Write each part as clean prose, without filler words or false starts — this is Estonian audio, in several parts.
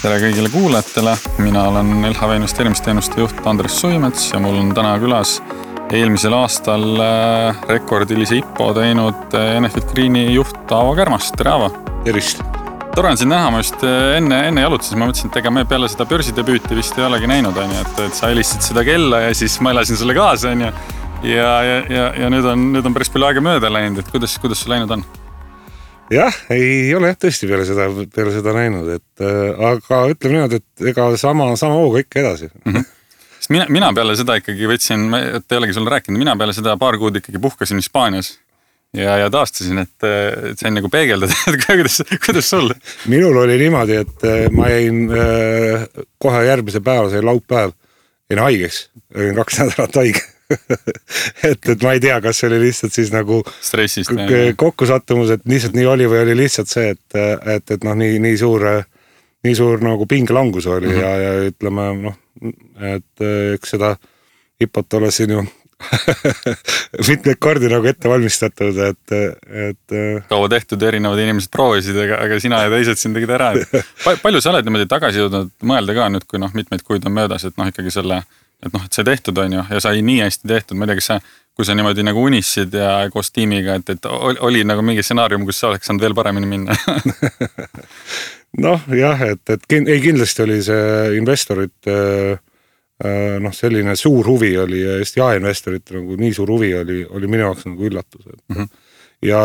Tere kõigile kuulajatele, mina olen LHV investeerimisteenuste juht Andres Suimets ja mul on täna külas eelmisel aastal rekordilise IPO teinud Enefit Greeni juht Aavo Kärmast. Tere Aavo! Tervist! Tore on sind näha, ma just enne jalutasin, ma mõtlesin, et ega me peale seda börsidebüüti vist ei olegi näinud, et sa helistasid seda kella ja siis ma elasin sulle kaasa ja nüüd on päris palju aega mööda läinud, et kuidas sul läinud on? Jah, ei ole tõesti peale seda näinud, aga ütleme niimoodi, et ega sama hooga ikka edasi. Sest mina peale seda ikkagi võtsin, et ei olegi sulle rääkinud, mina peale seda paar kuud ikkagi puhkasin Hispaanias ja taastasin, et sain nagu peegeldada, et kuidas sul? Minul oli niimoodi, et ma jäin kohe järgmise päeva, see laupäev, jäin haigeks, olin 2 nädalat haige. et ma ei tea, kas see oli lihtsalt siis nagu stressist kokkusattumus, et lihtsalt nii oli või oli lihtsalt see, et noh, nii suur nagu pingelangus oli ja ütleme, noh, et eks seda hipot ole siin ju mitmeid kordi nagu ette valmistatud, et kaua tehtud erinevad inimesed proovisid, aga sina ja teised siin tegid ära. Palju sa oled niimoodi tagasi jõudnud mõelda ka nüüd, kui mitmeid kuid on möödas, et noh, ikkagi et see tehtud on ju ja sai nii hästi tehtud, ma ei tea, kui sa niimoodi nagu unissid ja koos tiimiga, et oli nagu mingi stsenaarium, kus sa oleks saanud veel paremini minna? Noh, jah, et kindlasti oli see investorit selline suur huvi oli ja just jaeinvestorit nagu nii suur huvi oli minu jaoks nagu üllatus. Ja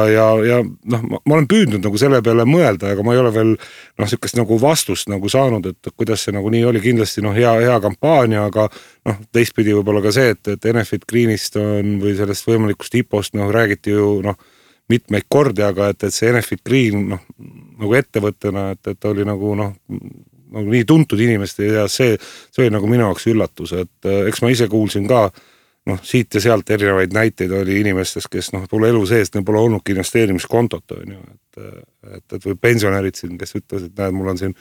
noh, ma olen püüdnud nagu selle peale mõelda, aga ma ei ole veel sükest nagu vastust nagu saanud, et kuidas see nagu nii oli, kindlasti hea kampaania, aga teistpidi võib-olla ka see, et Enefit Greenist on või sellest võimalikust IPO-st räägiti ju mitmeid kordi, aga et see Enefit Green nagu ettevõttena, et oli nagu nii tuntud inimeste ja see oli nagu minu jaoks üllatus, et eks ma ise kuulsin ka siit ja sealt erinevaid näiteid oli inimestest, kes pole elu seest, neil pole olnudki investeerimiskontot, et või pensionärid siin, kes ütlesid, et näed, mul on siin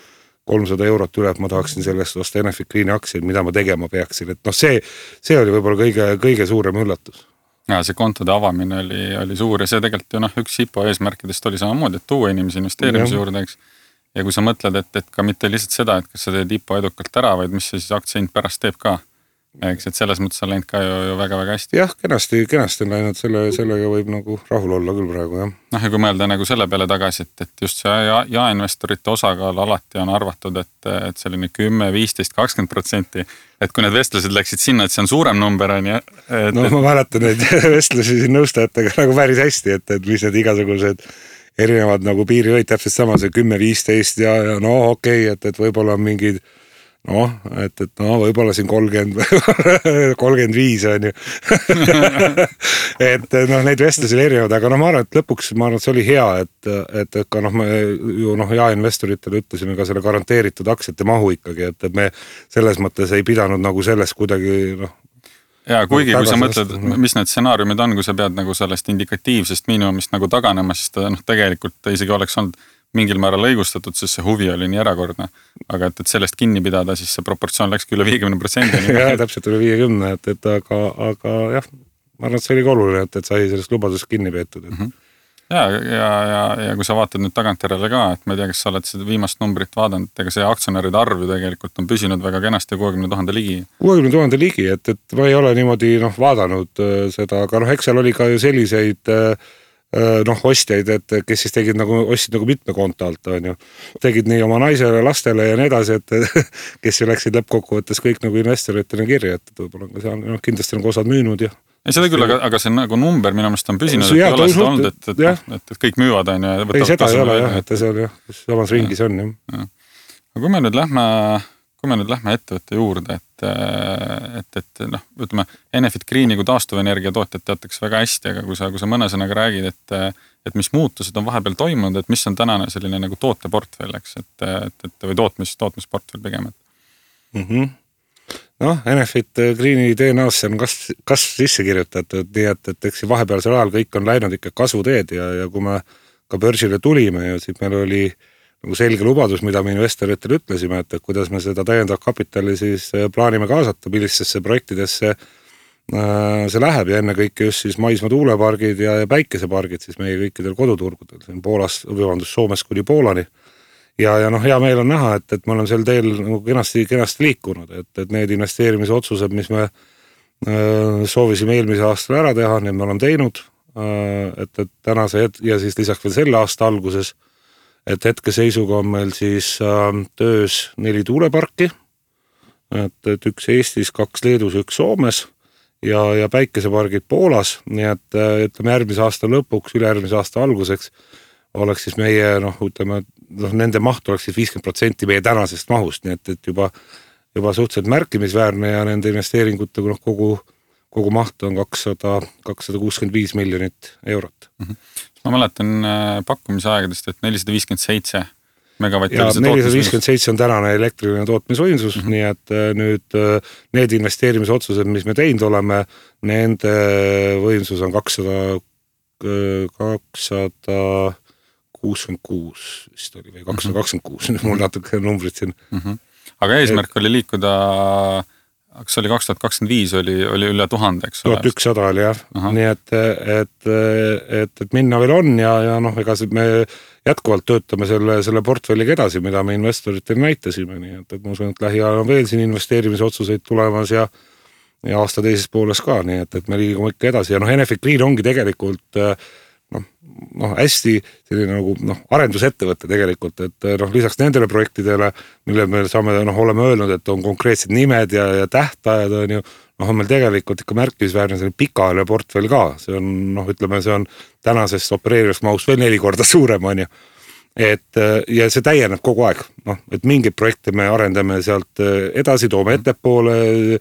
300 eurot üle, et ma tahaksin sellest osta Enefit Greeni aktsiaid, mida ma tegema peaksin, et see oli võib-olla kõige suurem üllatus. Ja see kontode avamine oli suur ja see tegelikult ju üks IPO eesmärkidest oli samamoodi, et tuua inimesi investeerimise juurde, eks. Ja kui sa mõtled, et ka mitte lihtsalt seda, et kas sa teed IPO edukalt ära, vaid mis see siis aktsiahind pärast teeb ka. Eks, et selles mõttes on läinud ka ju väga-väga hästi. Jah, kenasti on läinud, sellega võib nagu rahul olla küll praegu, jah. Ja kui mõelda nagu selle peale tagasi, et just see jaeinvestorite osakaal alati on arvatud, et selline 10, 15, 20%, et kui need vestlused läksid sinna, et see on suurem number, on ja... ma mäletan neid vestlusi siin nõustajatega nagu päris hästi, et mis need igasugused erinevad nagu piirihoid täpselt sama, see 10, 15 ja okei, et võib-olla on mingid et võib-olla siin 30, 35 on ju. et neid vestlusi oli erinevad, aga ma arvan, et lõpuks see oli hea, et ka me ju jaeinvestoritele ütlesime ka selle garanteeritud aktsiate mahu ikkagi, et me selles mõttes ei pidanud nagu sellest kuidagi ja kuigi kui sa mõtled, mis need stsenaariumid on, kui sa pead nagu sellest indikatiivsest miinimumist nagu taganema, siis ta tegelikult isegi oleks olnud mingil määral õigustatud, sest see huvi oli nii erakordne. Aga et sellest kinni pidada, siis see proportsioon läkski üle 50%. Jah, täpselt üle 50%, aga jah, ma arvan, et see oli ka oluline, et sai sellest lubadusest kinni peetud. Ja kui sa vaatad nüüd tagantjärele ka, et ma ei tea, kas sa oled seda viimast numbrit vaadanud, ega see aktsionäride arv ju tegelikult on püsinud väga kenasti 60,000 ligi. 60,000 ligi, et ma ei ole niimoodi vaadanud seda, aga eks seal oli ka ju selliseid ostjaid, et kes siis tegid ostsid mitme konto alt, on ju. Tegid nii oma naisele, lastele ja nii edasi, et kes ju läksid lõppkokkuvõttes kõik nagu investoritena kirja, et võib-olla ka seal kindlasti on osad müünud ja... Ei seda küll, aga see nagu number minu meelest on püsinud, et ei ole seda olnud, et kõik müüvad, on ju. Ei, seda ei ole jah, et see on jah, samas ringis on jah. Aga kui me nüüd lähme ettevõtte juurde, et ütleme, Enefit Greeni kui taastuvenergia tootjad teatakse väga hästi, aga kui sa mõne sõnaga räägid, et mis muutused on vahepeal toimunud, et mis on tänane selline nagu tooteportfell, eks, või tootmisportfell pigem. Enefit Greeni DNA-sse on kas sisse kirjutatud, nii et eks vahepealsel ajal kõik on läinud ikka kasvuteed ja kui me ka börsile tulime ja siis meil oli nagu selge lubadus, mida me investoritele ütlesime, et kuidas me seda täiendav kapitali siis plaanime kaasata, millistesse projektidesse see läheb ja enne kõike just siis maismaa tuulepargid ja päikesepargid siis meie kõikidel koduturgudel, siin Soomes kuni Poolani ja noh, hea meel on näha, et me oleme sel teel nagu kenasti liikunud, et need investeerimisotsused, mis me soovisime eelmise aastal ära teha, need me oleme teinud, et tänase ja siis lisaks veel selle aasta alguses, et hetkeseisuga on meil siis töös 4 tuuleparki, et 1 Eestis, 2 Leedus, 1 Soomes ja päikesepargid Poolas, nii et ütleme järgmise aasta lõpuks, ülejärgmise aasta alguseks oleks siis meie, ütleme, nende maht oleks siis 50% meie tänasest mahust, nii et juba suhteliselt märkimisväärne ja nende investeeringute kogu maht on 265 miljonit eurot. Ma mäletan pakkumise aegadest, et 457 megavatti. Ja 457 on tänane elektriline tootmisvõimsus, nii et nüüd need investeerimisotsused, mis me teinud oleme, nende võimsus on 266 vist oli või 226, mul natuke numbrid siin. Aga eesmärk oli liikuda, kas oli 2025 oli üle 1000, eks ole? 1100 oli jah, nii et minna veel on ja ega me jätkuvalt töötame selle portfelliga edasi, mida me investoritele näitasime, nii et ma usun, et lähiajal on veel siin investeerimisotsuseid tulemas ja aasta teises pooles ka, nii et me liigume ikka edasi ja Enefit Green ongi tegelikult hästi selline nagu arendusettevõte tegelikult, et lisaks nendele projektidele, mille me saame, oleme öelnud, et on konkreetsed nimed ja tähtajad on ju, on meil tegelikult ikka märkimisväärne selline pikaajaline portfell ka, see on, ütleme, see on tänasest opereerivast mahust veel 4 korda suurem, on ju. Ja see täieneb kogu aeg, et mingeid projekte me arendame sealt edasi, toome ettepoole,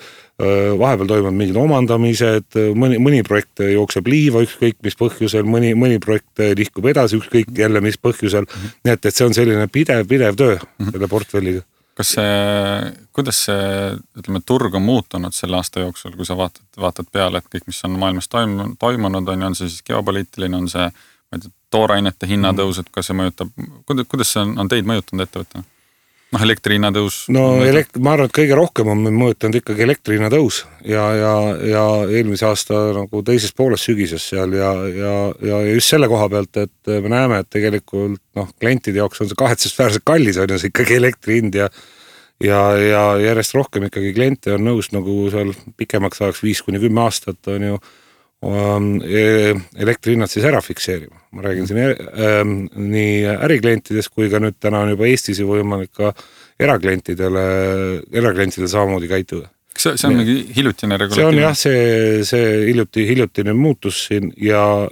vahepeal toimuvad mingid omandamised, mõni projekt jookseb liiva ükskõik mis põhjusel, mõni projekt liikub edasi ükskõik jälle mis põhjusel, nii et see on selline pidev töö selle portfelliga. Kuidas see, ütleme, turg on muutunud selle aasta jooksul, kui sa vaatad peale, et kõik, mis on maailmas toimunud, on see siis geopoliitiline, on see toorainete hinnatõus, et kas see mõjutab, kuidas see on teid mõjutanud ettevõttena? Elektri hinnatõus? Ma arvan, et kõige rohkem on mõjutanud ikkagi elektri hinnatõus ja eelmise aasta teises pooles sügises seal ja just selle koha pealt, et me näeme, et tegelikult klientide jaoks on see kahetsusväärselt kallis, on see ikkagi elektri hind ja järjest rohkem ikkagi kliente on nõus seal pikemaks ajaks 5-10 aastat on ju elektrihinnad siis ära fikseerima. Ma räägin siin nii äriklientidest kui ka nüüd täna on juba Eestis võimalik ka eraklientidele samamoodi käituda. See on mingi hiljutine regulatiivne? See on jah, see hiljutine muutus siin ja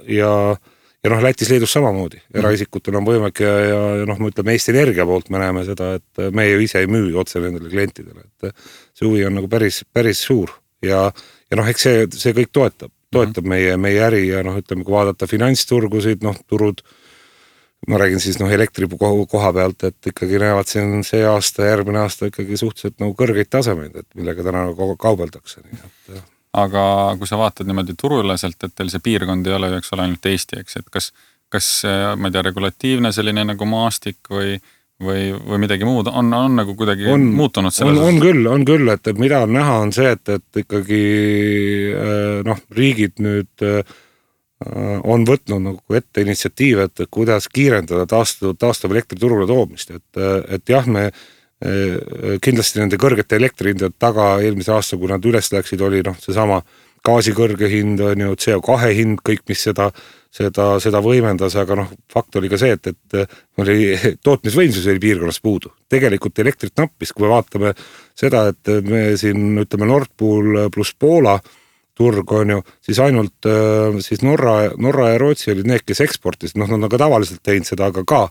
Lätis Leedus samamoodi. Eraisikutel on võimalik ja me ütleme Eesti Energia poolt me näeme seda, et me ju ise ei müü otse nendele klientidele. Et see huvi on päris suur ja eks see kõik toetab meie äri ja ütleme, kui vaadata finantsturgusid, turud, ma räägin siis elektri koha pealt, et ikkagi näevad siin see aasta, järgmine aasta ikkagi suhteliselt kõrgeid tasemeid, et millega täna kaubeldakse. Aga kui sa vaatad niimoodi turuüleselt, et teil see piirkond ei ole, eks ole, ainult Eesti, eks, et kas ma ei tea, regulatiivne selline nagu maastik või midagi muud on nagu kuidagi muutunud selles? On küll, et mida on näha on see, et ikkagi riigid nüüd on võtnud nagu ette initsiatiive, et kuidas kiirendada taastuv elektriturule toomist, et jah, me kindlasti nende kõrgete elektrihindade taga eelmise aasta, kui nad üles läksid, oli seesama gaasi kõrge hind, on ju, CO2 hind, kõik, mis seda võimendas, aga fakt oli ka see, et tootmisvõimsus oli piirkonnas puudu. Tegelikult elektrit nappis, kui me vaatame seda, et me siin, ütleme, Nord Pool pluss Poola turg on ju, siis ainult siis Norra ja Rootsi olid need, kes eksportis, nad on ka tavaliselt teinud seda, aga ka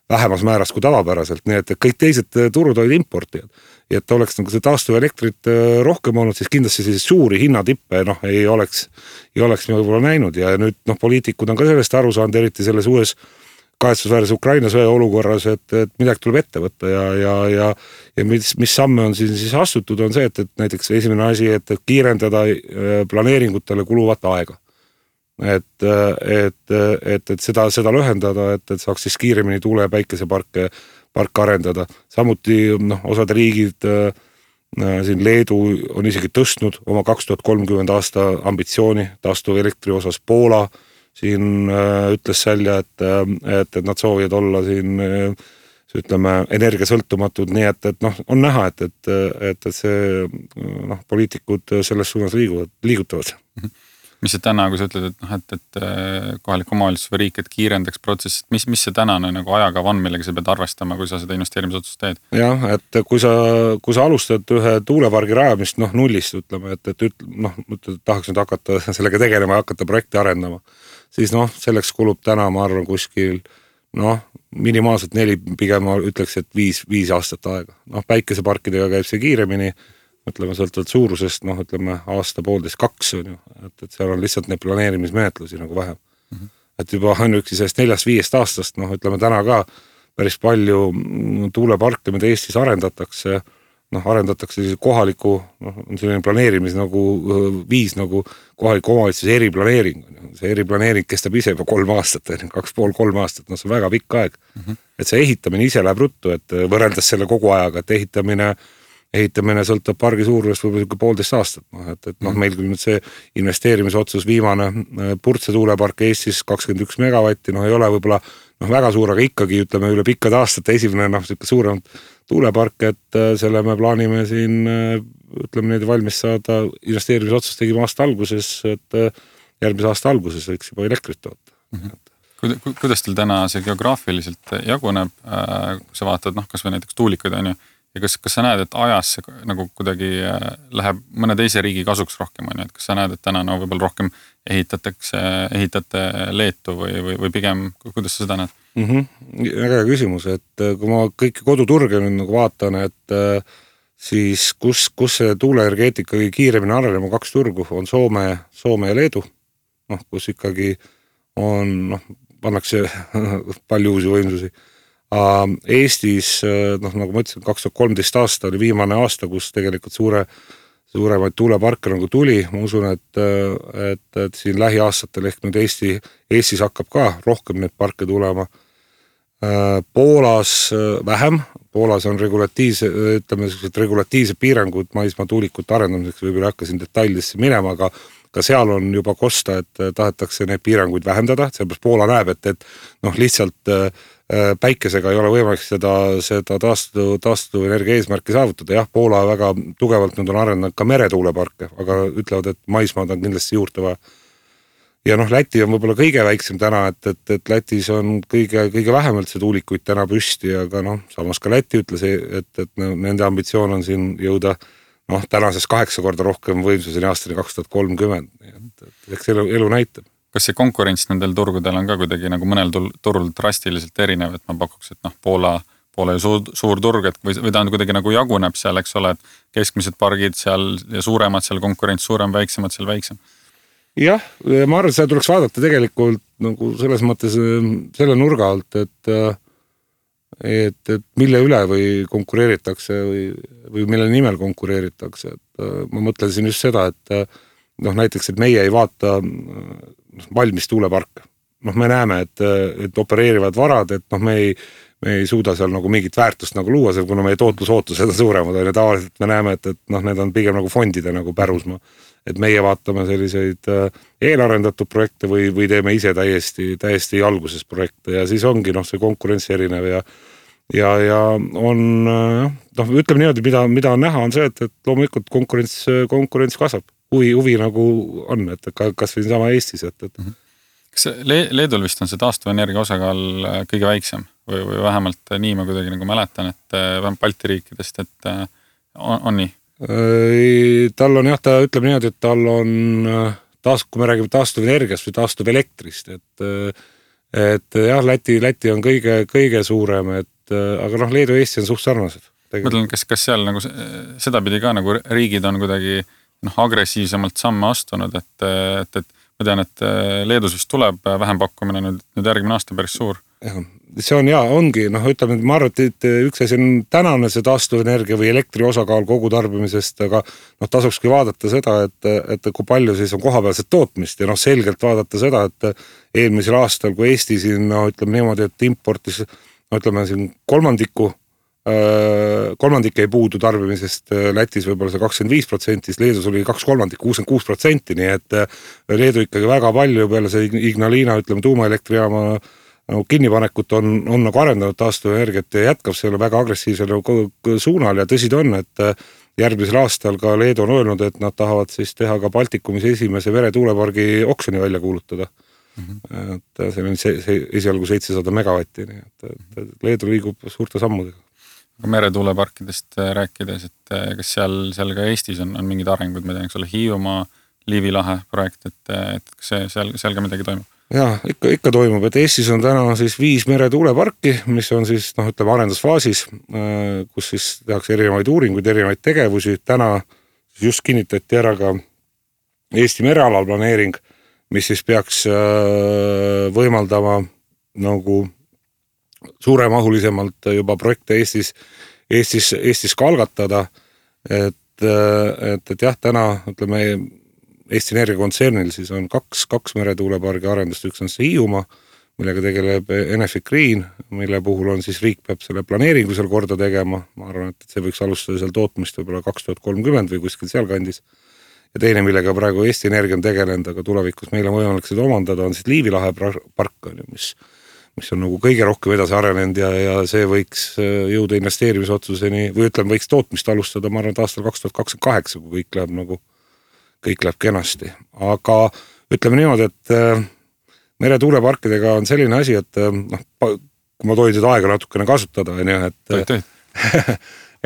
vähemas määras kui tavapäraselt, nii et kõik teised turud olid importijad. Ja et oleks see taastuv elektrit rohkem olnud, siis kindlasti siis suuri hinnatippe ei oleks me võib-olla näinud ja nüüd poliitikud on ka sellest aru saanud, eriti selles uues kahetsusväärses Ukraina sõja olukorras, et midagi tuleb ette võtta ja mis samme on siis astutud, on see, et näiteks esimene asi, et kiirendada planeeringutele kuluvat aega. Et seda lühendada, et saaks siis kiiremini tuule- ja päikeseparke arendada. Samuti osad riigid, siin Leedu on isegi tõstnud oma 2030 aasta ambitsiooni taastuv elektri osas. Poola siin ütles välja, et nad soovivad olla siin ütleme, energiasõltumatud, nii et noh, on näha, et see noh, poliitikud selles suunas liigutavad. Mis see täna, kui sa ütled, et kohalik omavalitsus või riik, et kiirendaks protsessid, mis see tänane nagu ajakava on, millega sa pead arvestama, kui sa seda investeerimisotsust teed? Jah, et kui sa alustad ühe tuulepargi rajamist noh, nullist, ütleme, et tahaks nüüd hakata sellega tegelema ja hakata projekti arendama, siis noh, selleks kulub täna, ma arvan, kuskil noh, minimaalselt 4, pigem ma ütleks, et 5 aastat aega. Noh, päikeseparkidega käib see kiiremini, ütleme, sõltuvalt suurusest, noh, ütleme, aasta, 1,5–2 on ju, et seal on lihtsalt need planeerimismenetlusi nagu vähem. Et juba ainuüksi sellest 4-5 aastast, noh, ütleme täna ka päris palju tuuleparke, mida Eestis arendatakse siis kohaliku, noh, on selline planeerimis nagu viis nagu kohaliku omavalitsuse eriplaneering. See eriplaneering kestab ise juba 3 aastat, 2,5–3 aastat, noh, see on väga pikk aeg. Et see ehitamine ise läheb ruttu, et võrreldes selle kogu ajaga, et ehitamine sõltab pargi suurusest võib-olla 1,5 aastat. Et noh, meil küll nüüd see investeerimisotsus viimane Purtse tuulepark Eestis 21 megavatti, noh ei ole võib-olla noh, väga suur, aga ikkagi ütleme üle pikkade aastate esimene noh, suurem tuulepark, et selle me plaanime siin ütleme neid valmis saada, investeerimisotsus tegime aasta alguses, et järgmise aasta alguses võiks juba elektrit toota. Kuidas teil täna see geograafiliselt jaguneb, kui sa vaatad, noh, kas või näiteks tuulikuid on ju, ja kas sa näed, et ajas see nagu kuidagi läheb mõne teise riigi kasuks rohkem, on ju, et kas sa näed, et täna no võib-olla rohkem ehitate Leetu või pigem, kuidas sa seda näed? Väga hea küsimus, et kui ma kõiki koduturge nüüd nagu vaatan, et siis kus see tuuleenergeetika kõige kiiremini arenema 2 turgu on Soome ja Leedu, noh, kus ikkagi on, noh, pannakse palju uusi võimsusi. Eestis, noh, nagu ma ütlesin, 2013 aasta oli viimane aasta, kus tegelikult suuremaid tuuleparke nagu tuli. Ma usun, et siin lähiaastatel ehk nüüd Eestis hakkab ka rohkem neid parke tulema. Poolas vähem. Poolas on regulatiivsed piirangud maismaa tuulikute arendamiseks, võib-olla hakkasin detailidesse minema, aga ka seal on juba kosta, et tahetakse neid piiranguid vähendada. Sellepärast Poola näeb, et noh, lihtsalt päikesega ei ole võimalik seda taastuv energia eesmärki saavutada. Jah, Poola väga tugevalt nüüd on arendanud ka meretuuleparke, aga ütlevad, et maismaad on kindlasti juurde vaja. Ja noh, Läti on võib-olla kõige väiksem täna, et Lätis on kõige vähemalt see tuulikuid täna püsti, aga noh, samas ka Läti ütles, et nende ambitsioon on siin jõuda noh, tänases 8 korda rohkem võimsuseni aastani 2030. Eks elu näitab. Kas see konkurents nendel turgudel on ka kuidagi nagu mõnel turul drastiliselt erinev, et ma pakuks, et noh, Poola ju suur turg, et või ta on kuidagi nagu jaguneb seal, eks ole, et keskmised pargid seal ja suuremad seal konkurents, suurem, väiksemad seal väiksem? Jah, ma arvan, et seda tuleks vaadata tegelikult nagu selles mõttes selle nurga alt, et mille üle või konkureeritakse või mille nimel konkureeritakse. Et ma mõtlesin just seda, et noh, näiteks, et meie ei vaata valmis tuuleparke. Noh, me näeme, et opereerivad varad, et noh, me ei suuda seal nagu mingit väärtust nagu luua, kuna meie tootlusootused on suuremad, ja tavaliselt me näeme, et noh, need on pigem nagu fondide nagu pärusmaa. Et meie vaatame selliseid eelarendatud projekte või teeme ise täiesti alguses projekte ja siis ongi noh, see konkurents erinev ja on, noh, ütleme niimoodi, mida on näha, on see, et loomulikult konkurents kasvab. Huvi nagu on, et kas või sama Eestis. Kas Leedul vist on see taastuvenergia osakaal kõige väiksem või vähemalt nii ma kuidagi nagu mäletan, et vähemalt Balti riikidest, et on nii? Tal on jah, ta ütleb niimoodi, et tal on kui me räägime taastuvenergiast või taastuvelektrist, et jah, Läti on kõige suurem, aga noh, Leedu ja Eesti on suht sarnased. Mõtlen, kas seal nagu seda pidi ka nagu riigid on kuidagi agressiivsemalt samme astunud, et ma tean, et Leedus vist tuleb vähempakkumine nüüd järgmine aasta päris suur. See on ongi, noh, ütleme, ma arvan, et üks asi on tänane see taastuvenergia või elektri osakaal kogu tarbimisest, aga noh, tasukski vaadata seda, et kui palju siis on kohapealset tootmist ja noh, selgelt vaadata seda, et eelmisel aastal, kui Eesti siin, no ütleme niimoodi, et importis, no ütleme siin kolmandik ei puudu tarbimisest, Lätis võib-olla see 25%, Leedus oli 2/3, 66%, nii et Leedu ikkagi väga palju peale see Ignalina, ütleme, tuumaelektrijaama nagu kinnipanekut on nagu arendanud taastuvenergiat ja jätkab selle väga agressiivsel suunal ja tõsi ta on, et järgmisel aastal ka Leedu on öelnud, et nad tahavad siis teha ka Baltikumis esimese meretuulepargi oksjoni välja kuulutada. Et see on esialgu 700 megavatti, nii et Leedu liigub suurte sammudega. Meretuuleparkidest rääkides, et kas seal ka Eestis on mingid arengud, ma tean, eks ole, Hiiumaa, Liivi lahe projekt, et kas seal ka midagi toimub? Jaa, ikka toimub, et Eestis on täna siis 5 meretuuleparki, mis on siis, ütleme, arendusfaasis, kus siis tehakse erinevaid uuringuid, erinevaid tegevusi. Täna just kinnitati ära ka Eesti merealal planeering, mis siis peaks võimaldama nagu suuremahulisemalt juba projekte Eestis ka algatada, et jah, täna, ütleme, Eesti Energia kontsernil siis on kaks meretuulepargi arendust, üks on see Hiiumaa, millega tegeleb Enefit Green, mille puhul on siis riik peab selle planeeringu seal korda tegema, ma arvan, et see võiks alustada seal tootmist võib-olla 2030 või kuskil seal kandis. Ja teine, millega praegu Eesti Energia on tegelenud, aga tulevikus meile võimalik seda omandada, on siis Liivi lahe park, mis on nagu kõige rohkem edasi arenenud ja see võiks jõuda investeerimisotsuseni või ütleme, võiks tootmist alustada, ma arvan, et aastal 2028, kui kõik läheb kenasti. Aga ütleme niimoodi, et meretuuleparkidega on selline asi, et kui ma tohin seda aega natukene kasutada,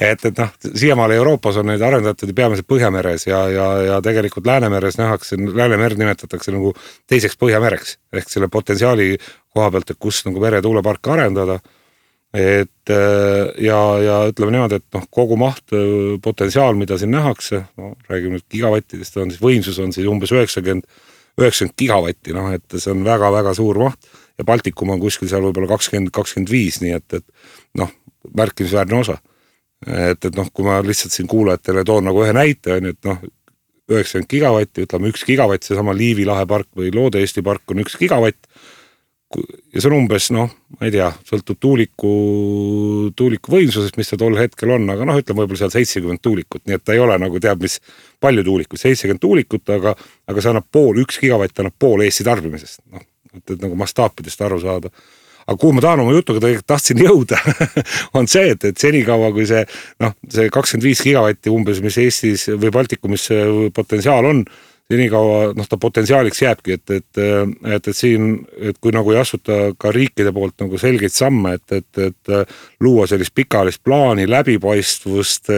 et siiamaale Euroopas on neid arendatud peamiselt Põhjameres ja tegelikult Läänemeres nähakse, Läänemerd nimetatakse nagu teiseks Põhjamereks ehk selle potentsiaali koha pealt, et kus nagu meretuuleparke arendada. Ja ütleme niimoodi, et kogu maht potentsiaal, mida siin nähakse, räägime nüüd gigavattidest, on siis võimsus on siis umbes 90 gigavatti, et see on väga-väga suur maht ja Baltikum on kuskil seal võib-olla 20-25, nii et märkimisväärne osa. Et kui ma lihtsalt siin kuulajatele toon nagu ühe näite, on, et 90 gigavatti, ütleme 1 gigavatt, see sama Liivi lahe park või Loode Eesti park on 1 gigavatt ja see on umbes, ma ei tea, sõltub tuuliku võimsusest, mis see tol hetkel on, aga ütleme võib-olla seal 70 tuulikut, nii et ta ei ole nagu teab, mis palju tuulikut, 70 tuulikut, aga see annab 1 gigavatt annab pool Eesti tarbimisest, et nagu mastaapidest aru saada. Aga kuhu ma tahan oma jutuga tahtsin jõuda, on see, et senikaua kui see 25 gigavatti umbes, mis Eestis või Baltikumis potentsiaal on, senikaua ta potentsiaaliks jääbki, et siin, et kui nagu ei asuta ka riikide poolt nagu selgeid samme, et luua sellist pikaajalist plaani, läbipaistvust,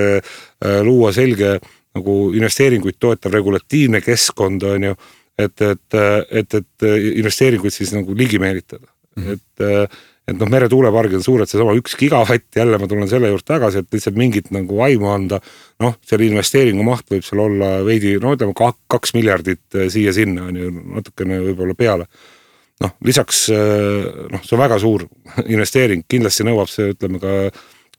luua selge nagu investeeringuid toetav regulatiivne keskkond, on ju, et investeeringuid siis nagu ligi meelitada. Et meretuulepargid on suured, see sama 1 gigavatt, jälle ma tulen selle juurde tagasi, et lihtsalt mingit nagu aimu anda, selle investeeringu maht võib seal olla veidi, ütleme 2 miljardit siia-sinna, on ju natukene võib-olla peale. Lisaks, see on väga suur investeering, kindlasti nõuab see, ütleme ka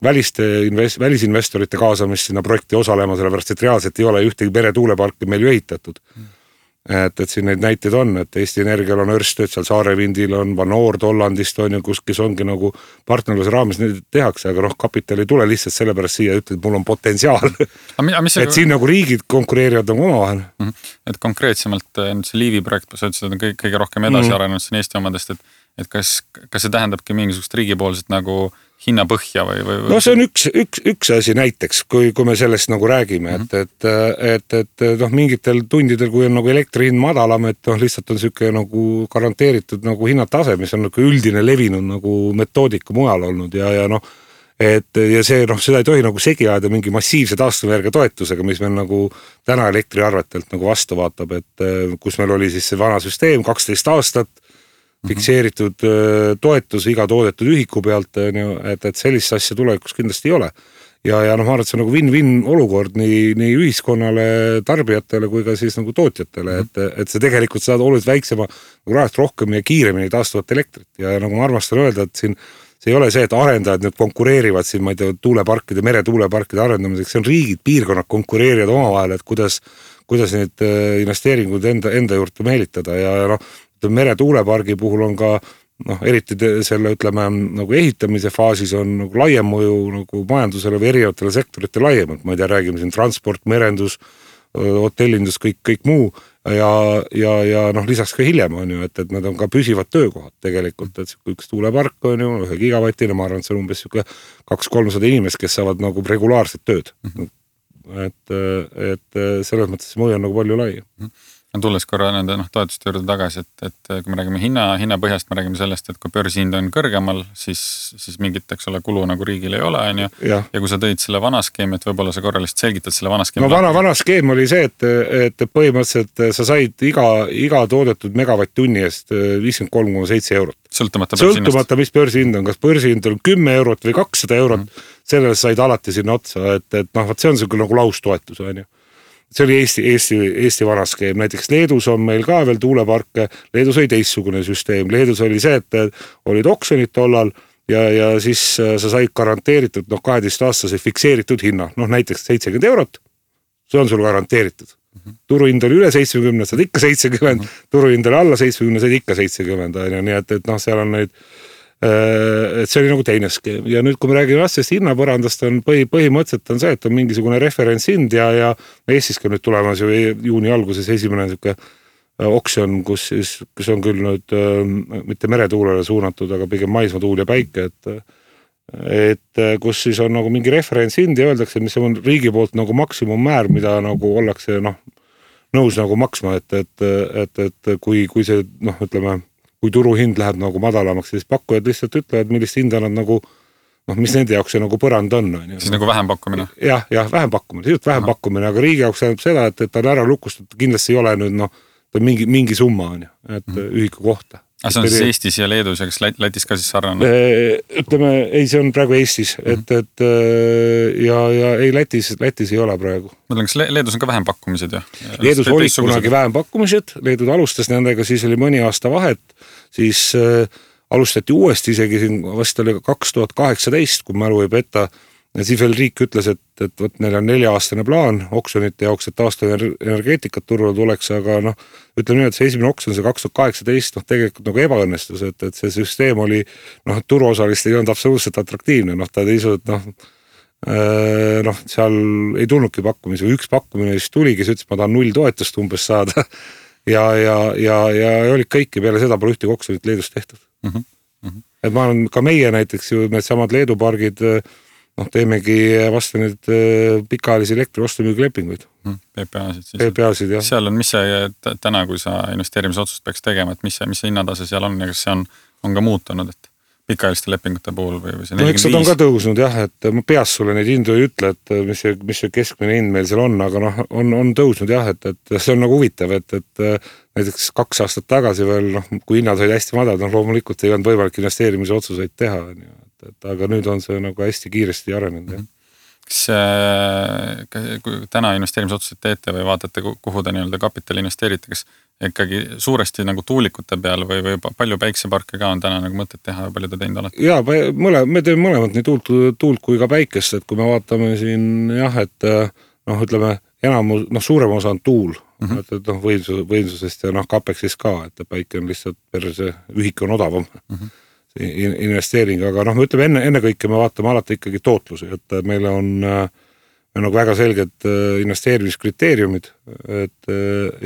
välisinvestorite kaasamist sinna projekti osalema, sellepärast, et reaalselt ei ole ühtegi meretuuleparki meil ju ehitatud. Et siin neid näiteid on, et Eesti Energial on Ørsted, seal Saarevindil on Van Oord Hollandist on ju, kes ongi nagu partnerluse raames neid tehakse, aga kapital ei tule lihtsalt sellepärast siia, ütled, mul on potentsiaal. Et siin nagu riigid konkureerivad nagu omavahel. Et konkreetsemalt see Liivi projekt, sa ütlesid, et on kõige rohkem edasi arenenud siin Eesti omadest, et kas see tähendabki mingisugust riigipoolset nagu hinnapõhja või? No see on üks asi näiteks, kui me sellest nagu räägime, et mingitel tundidel, kui on nagu elektri hind madalam, et lihtsalt on selline nagu garanteeritud nagu hinnatase, mis on nagu üldine levinud nagu metoodika mujal olnud ja see, seda ei tohi nagu segi ajada mingi massiivse taastuvenergia toetusega, mis meil nagu täna elektriarvetelt nagu vastu vaatab, et kus meil oli siis see vana süsteem 12 aastat, fikseeritud toetus iga toodetud ühiku pealt, et sellist asja tulevikus kindlasti ei ole. Ja ma arvan, et see on nagu win-win olukord nii ühiskonnale, tarbijatele kui ka siis nagu tootjatele, et see tegelikult saad oluliselt väiksema nagu rahast rohkem ja kiiremini taastuvat elektrit. Ja nagu ma armastan öelda, et siin see ei ole see, et arendajad nüüd konkureerivad siin, ma ei tea, tuuleparkide, meretuuleparkide arendamiseks, see on riigid, piirkonnad konkureerivad omavahel, et kuidas neid investeeringuid enda juurde meelitada ja meretuulepargi puhul on ka eriti selle, ütleme, nagu ehitamise faasis on nagu laiem mõju nagu majandusele või erinevatele sektorite laiemalt. Ma ei tea, räägime siin transport, merendus, hotellindus, kõik muu ja noh, lisaks ka hiljem on ju, et nad on ka püsivad töökohad tegelikult, et üks tuulepark on ju 1 gigavatine, ma arvan, et see on umbes 200-300 inimest, kes saavad nagu regulaarset tööd. Et selles mõttes see mõju on nagu palju lai. Tulles korra nende toetuste juurde tagasi, et kui me räägime hinna põhjast, me räägime sellest, et kui börsihind on kõrgemal, siis mingit, eks ole, kulu nagu riigil ei ole, on ju. Ja kui sa tõid selle vana skeemi, et võib-olla sa korra lihtsalt selgitad selle vana skeemi. No vana skeem oli see, et põhimõtteliselt sa said iga toodetud megavatt-tunni eest 53,7 eurot. Sõltumata, mis börsihind on, kas börsihind on 10 eurot või 200 eurot, sellele said alati sinna otsa, et see on see nagu laustoetus, on ju. See oli Eesti vana skeem, näiteks Leedus on meil ka veel tuuleparke, Leedus oli teistsugune süsteem, Leedus oli see, et olid oksjonid tollal ja siis sa said garanteeritud 12-aastase fikseeritud hinna, näiteks 70 eurot, see on sul garanteeritud. Turuhind oli üle 70, saad ikka 70, turuhind oli alla 70, saad ikka 70, nii et seal on neid et see oli nagu teine skeem ja nüüd kui me räägime sellest hinnapõrandast on põhimõtteliselt on see, et on mingisugune referentshind ja Eestis ka nüüd tulemas ju juuni alguses esimene oksjon, kus on küll nüüd mitte meretuulele suunatud, aga pigem maismaatuul ja päike, et kus siis on nagu mingi referentshind ja öeldakse, mis on riigi poolt nagu maksimummäär, mida nagu ollakse nõus nagu maksma, et kui see ütleme kui turuhind läheb nagu madalamaks, siis pakkujad lihtsalt ütlevad, millist hinda nad nagu, mis nende jaoks see nagu põrand on. Siis nagu vähempakkumine? Jah, vähempakkumine, aga riigi jaoks tähendab seda, et ta on ära lukustatud, kindlasti ei ole nüüd, ta on mingi summa, et ühiku kohta. See on siis Eestis ja Leedus ja kas Lätis ka siis sarnane? Ütleme, ei, see on praegu Eestis, ja ei, Lätis ei ole praegu. Mõtlen, kas Leedus on ka vähempakkumised? Leedus oli kunagi vähempakkumised, Leedud alustas nendega, siis oli mõni aasta vahet, siis alustati uuesti isegi siin vast oli 2018, kui mälu ei peta, ja siis veel riik ütles, et neil on 4-aastane plaan oksjonite jaoks, et taastuvenergeetikat turule tuleks, aga ütleme nii, et see esimene oksjon, see 2018, tegelikult nagu ebaõnnestus, et see süsteem oli, turuosalist ei olnud absoluutselt atraktiivne, ta teisu, et seal ei tulnudki pakkumisi, või üks pakkumine siis tuli, kes ütles, ma tahan 0 toetust umbes saada ja olid kõiki peale seda pole ühte oksjonit Leedus tehtud. Et ma olen ka meie näiteks ju need samad Leedu pargid teemegi vastu nüüd pikaajalisi elektri-ostumüügilepinguid. PPA-sid, jah. Seal on, mis see täna, kui sa investeerimisotsust peaks tegema, et mis see hinnatase seal on ja kas see on ka muutunud, et pikaajaliste lepingute puhul või see 45? Eks nad on ka tõusnud jah, et ma peas sulle neid hindu ei ütle, et mis see keskmine hind meil seal on, aga on tõusnud jah, et see on nagu huvitav, et näiteks 2 aastat tagasi veel, kui hinnad olid hästi madalad, loomulikult ei olnud võimalik investeerimise otsuseid teha, aga nüüd on see nagu hästi kiiresti arenenud. Kas kui täna investeerimisotsuseid teete või vaatate, kuhu te nii-öelda kapitali investeerite, kas ikkagi suuresti nagu tuulikute peal või palju päikseparke ka on täna nagu mõtet teha ja palju te teinud olete? Jaa, me teeme mõlemad nii tuult kui ka päikest, et kui me vaatame siin jah, et ütleme, suurem osa on tuul, et võimsusest ja kapeksist ka, et päike on lihtsalt see ühik on odavam. Investeering, aga me ütleme ennekõike me vaatame alati ikkagi tootlusi, et meil on nagu väga selged investeerimiskriteeriumid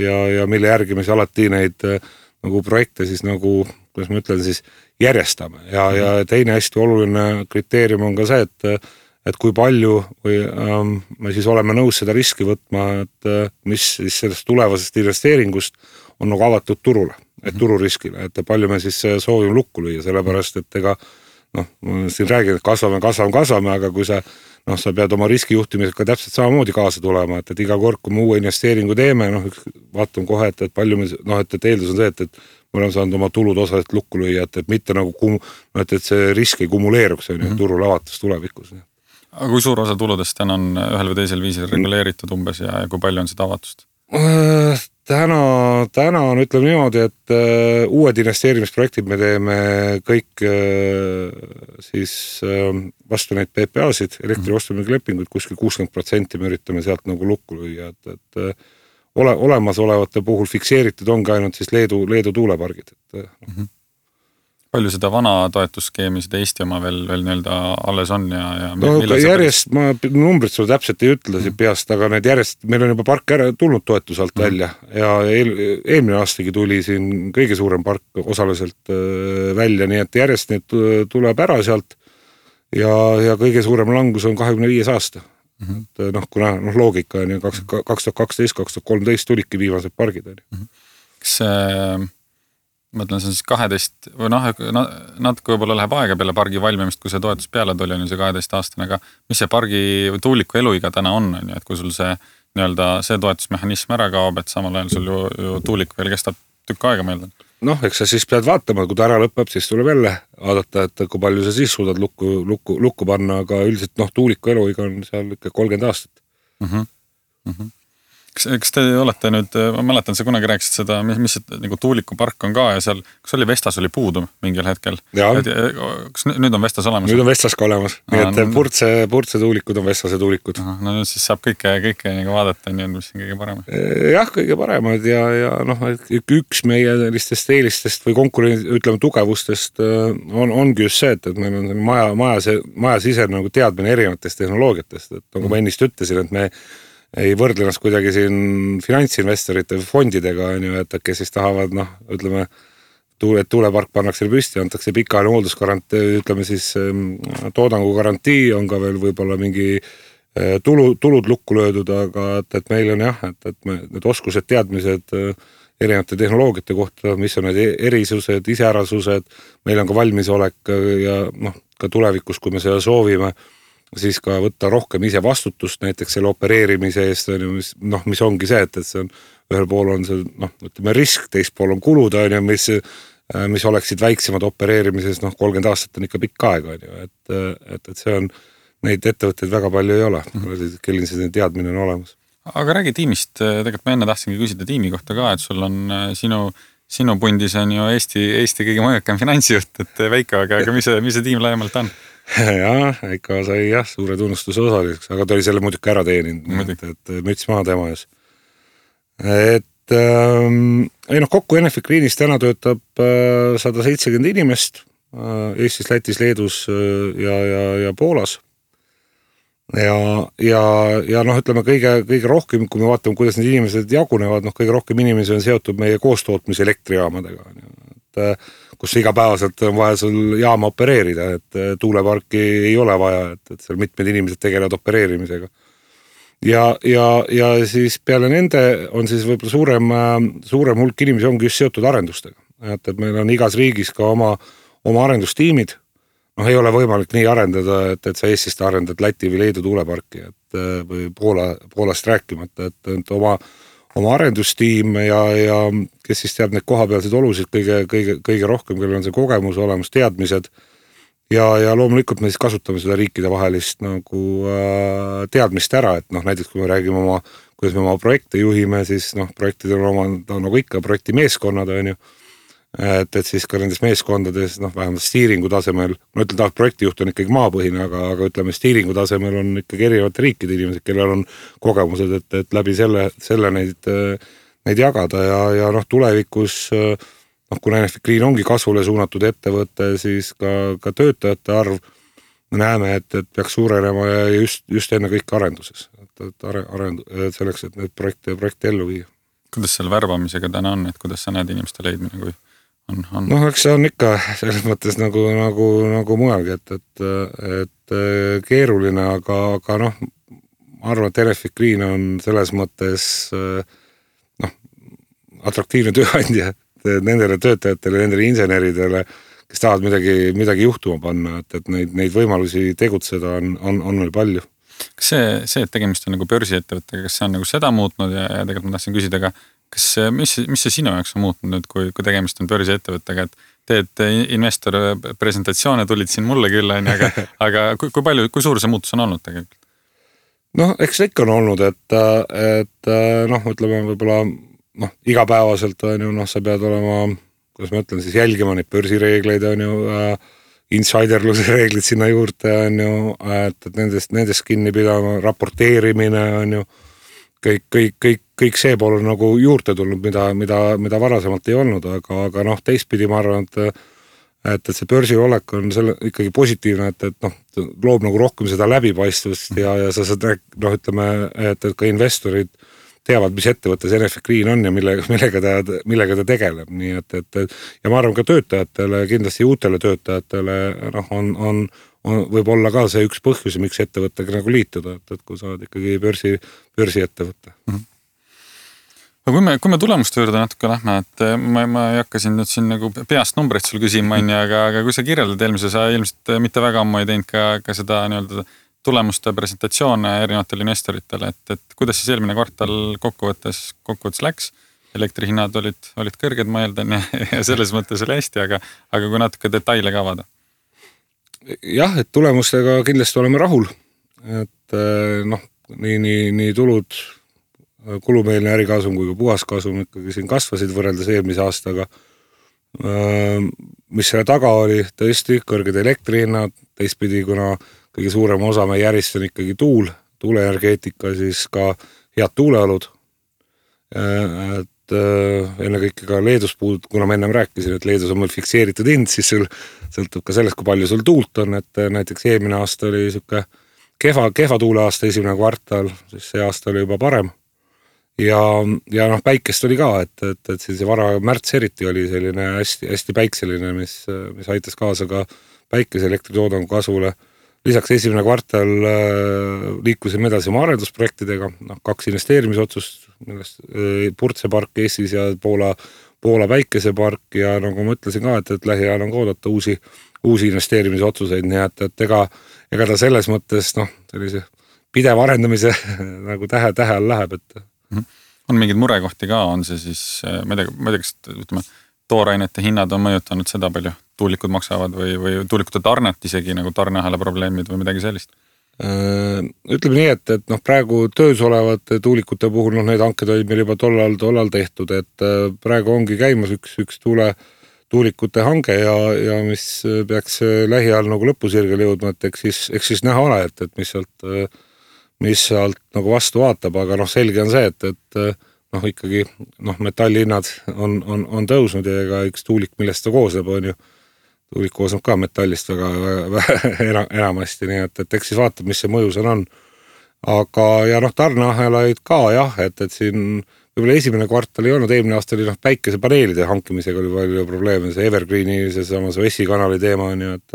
ja mille järgi me siis alati neid nagu projekte siis nagu, kuidas ma ütlen siis, järjestame ja teine hästi oluline kriteerium on ka see, et kui palju või me siis oleme nõus seda riski võtma, et mis siis sellest tulevasest investeeringust on nagu avatud turule, et tururiskile, et palju me siis soovime lukku lüüa, sellepärast, et ega siin räägin, et kasvame, aga kui sa pead oma riskijuhtimisega täpselt samamoodi kaasa tulema, et iga kord, kui me uue investeeringu teeme, vaatame kohe, et palju me, et eeldus on see, et me oleme saanud oma tulud osaliselt lukku lüüa, et mitte nagu, et see risk ei kumuleeruks turul avatus tulevikus. Aga kui suur osa tuludest täna on ühel või teisel viisil reguleeritud umbes ja kui palju on seda avatust? Täna on, ütleme niimoodi, et uued investeerimisprojektid me teeme kõik siis vastu neid PPA-sid, elektri-ostumüügilepinguid, kuskil 60% me üritame sealt nagu lukku lüüa, et olemasolevate puhul fikseeritud ongi ainult siis Leedu tuulepargid. Palju seda vana toetusskeemi, seda Eesti oma veel nii-öelda alles on ja no järjest, ma numbrid sulle täpselt ei ütle siin peast, aga need järjest, meil on juba park ära tulnud toetuse alt välja ja eelmine aastagi tuli siin kõige suurem park osaliselt välja, nii et järjest need tuleb ära sealt ja kõige suurem langus on 25 aasta. Et kuna loogika on ju 2012, 2013 tulidki viimased pargid. Kas mõtlen, see on siis 12 või natuke võib-olla läheb aega peale pargi valmimist, kui see toetus peale tuli, on ju see 12 aastane, aga mis see pargi või tuuliku eluiga täna on ju, et kui sul see nii-öelda see toetusmehhanism ära kaob, et samal ajal sul ju tuulik veel kestab tükk aega meeldan. Eks sa siis pead vaatama, kui ta ära lõpeb, siis tuleb jälle vaadata, et kui palju sa siis suudad lukku panna, aga üldiselt tuuliku eluiga on seal ikka 30 aastat. Kas te olete nüüd, ma mäletan, sa kunagi rääkisid seda, mis nagu tuulikupark on ka ja seal, kas oli Vestas oli puudu mingil hetkel? Kas nüüd on Vestas olemas? Nüüd on Vestas ka olemas, nii et Purtse tuulikud on Vestase tuulikud. No nüüd siis saab kõike nagu vaadata, nii on mis on kõige parem. Jah, kõige paremad ja üks meie sellistest eelistest või konkurendi, ütleme tugevustest ongi just see, et meil on maja sise nagu teadmine erinevatest tehnoloogiatest, et nagu ma ennist ütlesin, et me ei võrdle ennast kuidagi siin finantsinvestorite või fondidega, et kes siis tahavad, ütleme, et tuulepark pannakse püsti, antakse pikaajaline hooldusgarantii, ütleme siis toodangu garantii, on ka veel võib-olla mingi tulud lukku löödud, aga et meil on et need oskused, teadmised erinevate tehnoloogiate kohta, mis on need erisused, iseärasused, meil on ka valmisolek ja ka tulevikus, kui me seda soovime, siis ka võtta rohkem ise vastutust näiteks selle opereerimise eest, mis ongi see, et see on, ühel pool on see, ütleme risk, teist pool on kulud, mis oleksid väiksemad opereerimises, 30 aastat on ikka pikk aeg, et see on, neid ettevõtteid väga palju ei ole, kellel see teadmine on olemas. Aga räägi tiimist, tegelikult ma enne tahtsingi küsida tiimi kohta ka, et sul on sinu pundis on ju Eesti kõige mõjukam finantsjuht, et Veiko, aga mis see tiim laiemalt on? Ikka sai suure tunnustuse osaliseks, aga ta oli selle muidugi ära teeninud, et müts maha tema ees. Kokku Enefit Greenis täna töötab 170 inimest Eestis, Lätis, Leedus ja Poolas. Ja ütleme kõige rohkem, kui me vaatame, kuidas need inimesed jagunevad, kõige rohkem inimesi on seotud meie koostootmise elektrijaamadega, kus igapäevaselt on vaja sul jaama opereerida, et tuuleparki ei ole vaja, et seal mitmed inimesed tegelevad opereerimisega. Ja siis peale nende on siis võib-olla suurem hulk inimesi ongi just seotud arendustega. Et meil on igas riigis ka oma arendustiimid. Ei ole võimalik nii arendada, et sa Eestist arendad Läti või Leedu tuuleparki, või Poolast rääkimata, et oma arendustiim ja kes siis teab neid kohapealseid olusid kõige rohkem, kellel on see kogemus olemas, teadmised ja loomulikult me siis kasutame seda riikide vahelist nagu teadmist ära, et näiteks kui me räägime kuidas me oma projekte juhime, siis projektid on nagu ikka projekti meeskonnad on ju, et siis ka nendes meeskondades vähemalt stiiringu tasemel, ma ütlen, projektijuht on ikkagi maapõhine, aga ütleme stiiringu tasemel on ikkagi erinevate riikide inimesed, kellel on kogemused, et läbi selle neid jagada ja tulevikus, kuna Enefit Green ongi kasvule suunatud ettevõte, siis ka töötajate arv me näeme, et peaks suurenema ja just enne kõik arenduses, selleks, et need projekte ellu viia. Kuidas seal värbamisega täna on, et kuidas sa näed inimeste leidmine, kui on? Eks see on ikka selles mõttes nagu mujalgi, et keeruline, aga ma arvan, et Enefit Green on selles mõttes atraktiivne tööandja nendele töötajatele, nendele inseneridele, kes tahavad midagi juhtuma panna, et neid võimalusi tegutseda on meil palju. Kas see, et tegemist on nagu börsiettevõttega, kas see on nagu seda muutnud ja tegelikult ma tahtsin küsida ka, mis see sinu jaoks on muutnud nüüd, kui tegemist on börsiettevõttega, et teed investor presentatsioone, tulid siin mulle küll, aga kui suur see muutus on olnud tegelikult? Eks ikka on olnud, et ütleme võib-olla igapäevaselt on ju, sa pead olema, kuidas ma ütlen, siis jälgima neid börsireegleid on ju, insiderluse reeglid sinna juurde on ju, et nendest kinni pidama, raporteerimine on ju, kõik see pool on nagu juurde tulnud, mida varasemalt ei olnud, aga teistpidi ma arvan, et see börsil olek on selle ikkagi positiivne, et noh, loob nagu rohkem seda läbipaistvust ja sa saad, noh, ütleme, et ka investorid teavad, mis ettevõttes Enefit Green on ja millega ta tegeleb, nii et ja ma arvan ka töötajatele, kindlasti uutele töötajatele, noh, on võib olla ka see üks põhjus, miks ettevõttega nagu liituda, et kui sa oled ikkagi börsi ettevõtte. Aga kui me tulemuste juurde natuke lähme, et ma ei hakka siin nüüd siin nagu peast numbreid sul küsima, aga kui sa kirjeldad eelmise, sa ilmselt mitte väga ammu ei teinud ka seda nii-öelda tulemuste presentatsioone erinevatele investoritele, et kuidas siis eelmine kvartal kokkuvõttes läks, elektrihinnad olid kõrged, ma eeldan, ja selles mõttes oli hästi, aga kui natuke detaile ka avada. Jah, et tulemustega kindlasti oleme rahul, et noh, nii tulud, kulumeelne ärikasum kui ka puhaskasum ikkagi siin kasvasid võrreldes eelmise aastaga. Mis selle taga oli, tõesti kõrged elektrihinnad, teistpidi, kuna kõige suurem osa meie järjest on ikkagi tuuleenergeetika, siis ka head tuuleolud. Et ennekõike ka Leedus kuna ma ennem rääkisin, et Leedus on meil fikseeritud hind, siis sul sõltub ka sellest, kui palju sul tuult on, et näiteks eelmine aasta oli siuke kehva tuuleaasta esimene kvartal, siis see aasta oli juba parem. Ja noh, päikest oli ka, et see vara märts eriti oli selline hästi päikseline, mis aitas kaasa ka päikese elektritoodangu kasvule. Lisaks esimene kvartal liikusime edasi oma arendusprojektidega, 2 investeerimisotsust, millest Purtse-park Eestis ja Poola päikesepark ja nagu ma ütlesin ka, et lähiajal on ka oodata uusi investeerimisotsuseid, nii et ega ta selles mõttes sellise pidev arendamise nagu tähe all läheb, et on mingeid murekohti ka, on see siis, ma ei tea, kas ütleme, toorainete hinnad on mõjutanud seda palju, tuulikud maksavad või tuulikute tarnet isegi nagu tarneahela probleemid või midagi sellist? Ütleme nii, et praegu töös olevate tuulikute puhul need hanked olid meil juba tollal tehtud, et praegu ongi käimas üks tuulikute hange ja mis peaks lähiajal nagu lõpusirgele jõudma, et eks siis näha ole, et mis sealt nagu vastu vaatab, aga selge on see, et ikkagi metallihinnad on tõusnud ja ega üks tuulik, millest ta koosneb, on ju. Tuulik koosneb ka metallist väga enamasti, nii et eks siis vaatab, mis see mõju seal on. Aga ja tarneahelaid ka jah, et siin võib-olla esimene kvartal ei olnud, eelmine aasta oli päikesepaneelide hankimisega oli palju probleeme, see Evergreeni, see samas Vessi kanali teema on ju, et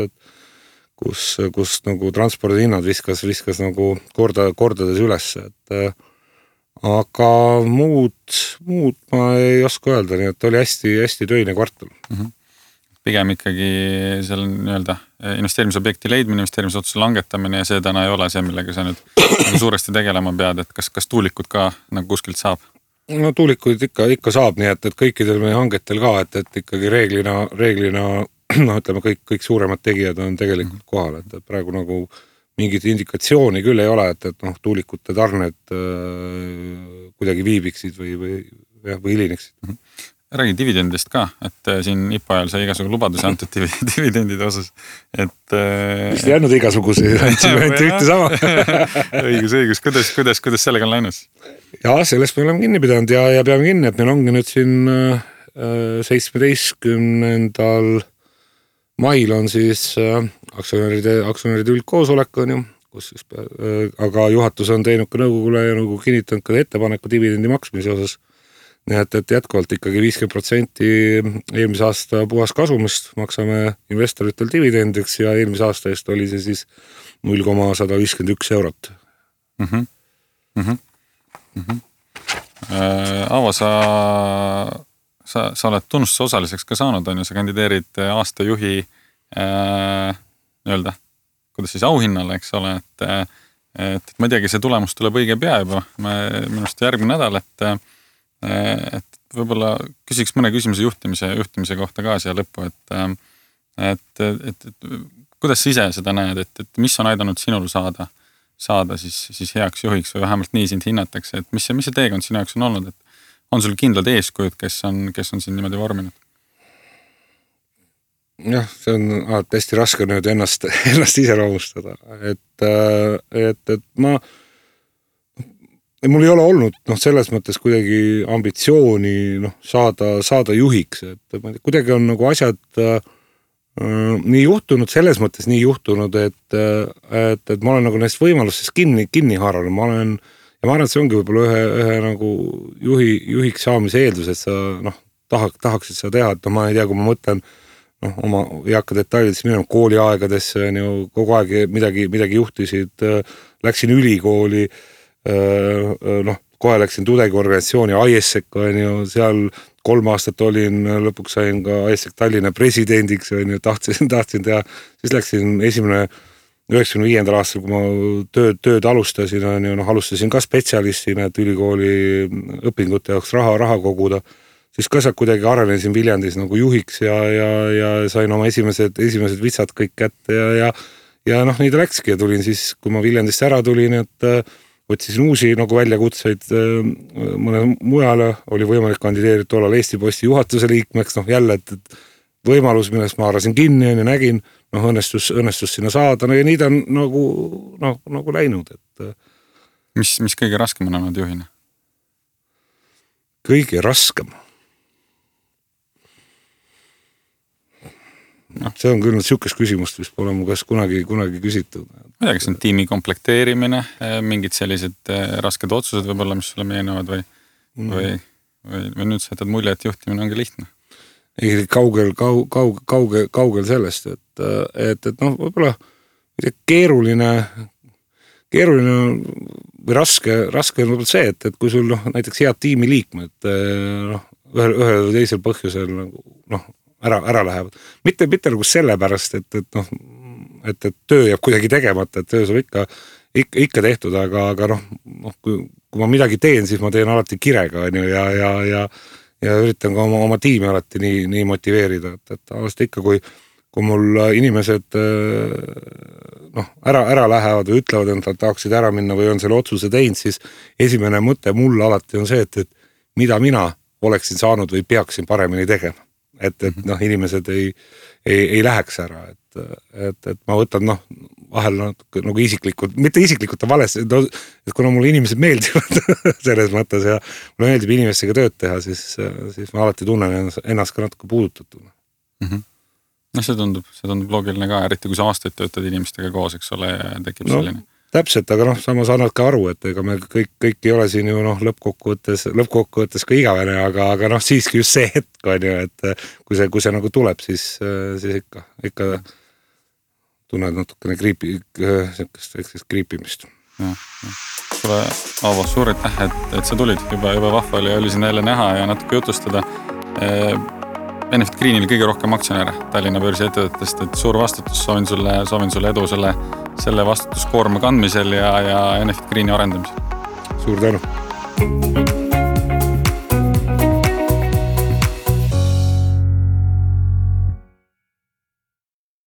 kus nagu transpordihinnad viskas nagu kordades üles, et aga muud ma ei oska öelda, nii et oli hästi töine kvartal. Pigem ikkagi seal nii-öelda investeerimisobjekti leidmine, investeerimisotsuse langetamine ja see täna ei ole see, millega sa nüüd suuresti tegelema pead, et kas tuulikud ka nagu kuskilt saab? No tuulikuid ikka saab, nii et kõikidel meie hangetel ka, et ikkagi reeglina ütleme, kõik suuremad tegijad on tegelikult kohal, et praegu nagu mingit indikatsiooni küll ei ole, et tuulikute tarned kuidagi viibiksid või hilineksid. Räägi dividendist ka, et siin IPO ajal sai igasugu lubadusi antud dividendide osas, et vist ei andnud igasuguse, andsime ühte sama. õigus, kuidas sellega on läinud? Ja sellest me oleme kinni pidanud ja peame kinni, et meil ongi nüüd siin 17. mail on siis aktsionäride üldkoosolek on ju, kus siis, aga juhatus on teinud ka nõukogule ja nõukogu kinnitanud ka ettepaneku dividendi maksmise osas. Nii et jätkuvalt ikkagi 50% eelmise aasta puhas kasumist maksame investoritel dividendiks ja eelmise aasta eest oli see siis 0,151 eurot. Aavo, sa oled tunnustuse osaliseks ka saanud, on ju, sa kandideerid aasta juhi nii-öelda, kuidas siis auhinnale, eks ole, et ma ei teagi, see tulemus tuleb õige pea juba, minust järgmine nädal, et võib-olla küsiks mõne küsimuse juhtimise kohta ka siia lõppu, et kuidas sa ise seda näed, et mis on aidanud sinul saada siis heaks juhiks või vähemalt nii sind hinnatakse, et mis see teekond sinu jaoks on olnud, et on sul kindlad eeskujud, kes on siin niimoodi vorminud? Jah, see on hästi raske nüüd ennast iseloomustada, et mul ei ole olnud selles mõttes kuidagi ambitsiooni saada juhiks, et kuidagi on nagu asjad nii juhtunud, selles mõttes nii juhtunud, et ma olen nagu neist võimalustest kinni haaranud, ma arvan, et see ongi võib-olla ühe nagu juhiks saamise eeldus, et sa tahaksid seda teha, et ma ei tea, kui ma mõtlen oma ei hakka detailidesse minema kooliaegadesse, kogu aeg midagi juhtisid, läksin ülikooli, kohe läksin tudengiorganisatsiooni ISEC, seal 3 aastat olin, lõpuks sain ka ISEC Tallinna presidendiks, tahtsin teha, siis läksin 95. aastal, kui ma tööd alustasin, alustasin ka spetsialistina, et ülikooli õpingute jaoks raha koguda. Siis ka sealt kuidagi arenesin Viljandis nagu juhiks ja sain oma esimesed vitsad kõik kätte ja nii ta läkski ja tulin siis, kui ma Viljandist ära tulin, et võtsisin uusi nagu väljakutseid mõne mujale, oli võimalik kandideerida tollal Eesti Posti juhatuse liikmeks, jälle, et võimalus, millest ma haarasin kinni ja nägin, õnnestus sinna saada, ja nii ta on nagu läinud, et Mis kõige raskem on olnud juhina? Kõige raskem? See on küll siukest küsimust, mis pole mu käest kunagi küsitud. Ma tea, kas on tiimi komplekteerimine, mingid sellised rasked otsused võib-olla, mis sulle meenavad või nüüd sa jätad mulje, et juhtimine ongi lihtne? Ei, kaugel sellest, et võib-olla keeruline või raske on võib-olla see, et kui sul näiteks head tiimi liikmed ühel või teisel põhjusel ära lähevad. Mitte nagu sellepärast, et töö jääb kuidagi tegemata, et töö saab ikka tehtud, aga kui ma midagi teen, siis ma teen alati kirega ja üritan ka oma tiimi alati nii motiveerida, et alati ikka, kui mul inimesed ära lähevad või ütlevad, et nad tahaksid ära minna või on selle otsuse teinud, siis esimene mõte mul alati on see, et mida mina oleksin saanud või peaksin paremini tegema. Et inimesed ei läheks ära, et ma võtan vahel nagu isiklikult, mitte isiklikult on vales, et kuna mulle inimesed meeldivad selles mõttes ja mulle meeldib inimestega tööd teha, siis ma alati tunnen ennast ka natuke puudutatuna. See tundub loogiline ka, eriti kui sa aastaid töötad inimestega koos, eks ole, ja tekib selline. Täpselt, aga samas annad ka aru, et ega me kõik ei ole siin ju lõppkokkuvõttes ka igavene, aga siiski just see hetk on ju, et kui see nagu tuleb, siis ikka tunned natukene kriipimist. Sulle, Aavo, suur aitäh, et sa tulid, juba vahva oli siin jälle näha ja natuke jutustada. Enefit Greenil kõige rohkem aktsionäre Tallinna börsi ettevõtetest, et suur vastutus, soovin sulle edu selle vastutuskoorma kandmisel ja Enefit Greeni arendamisel. Suur tänu!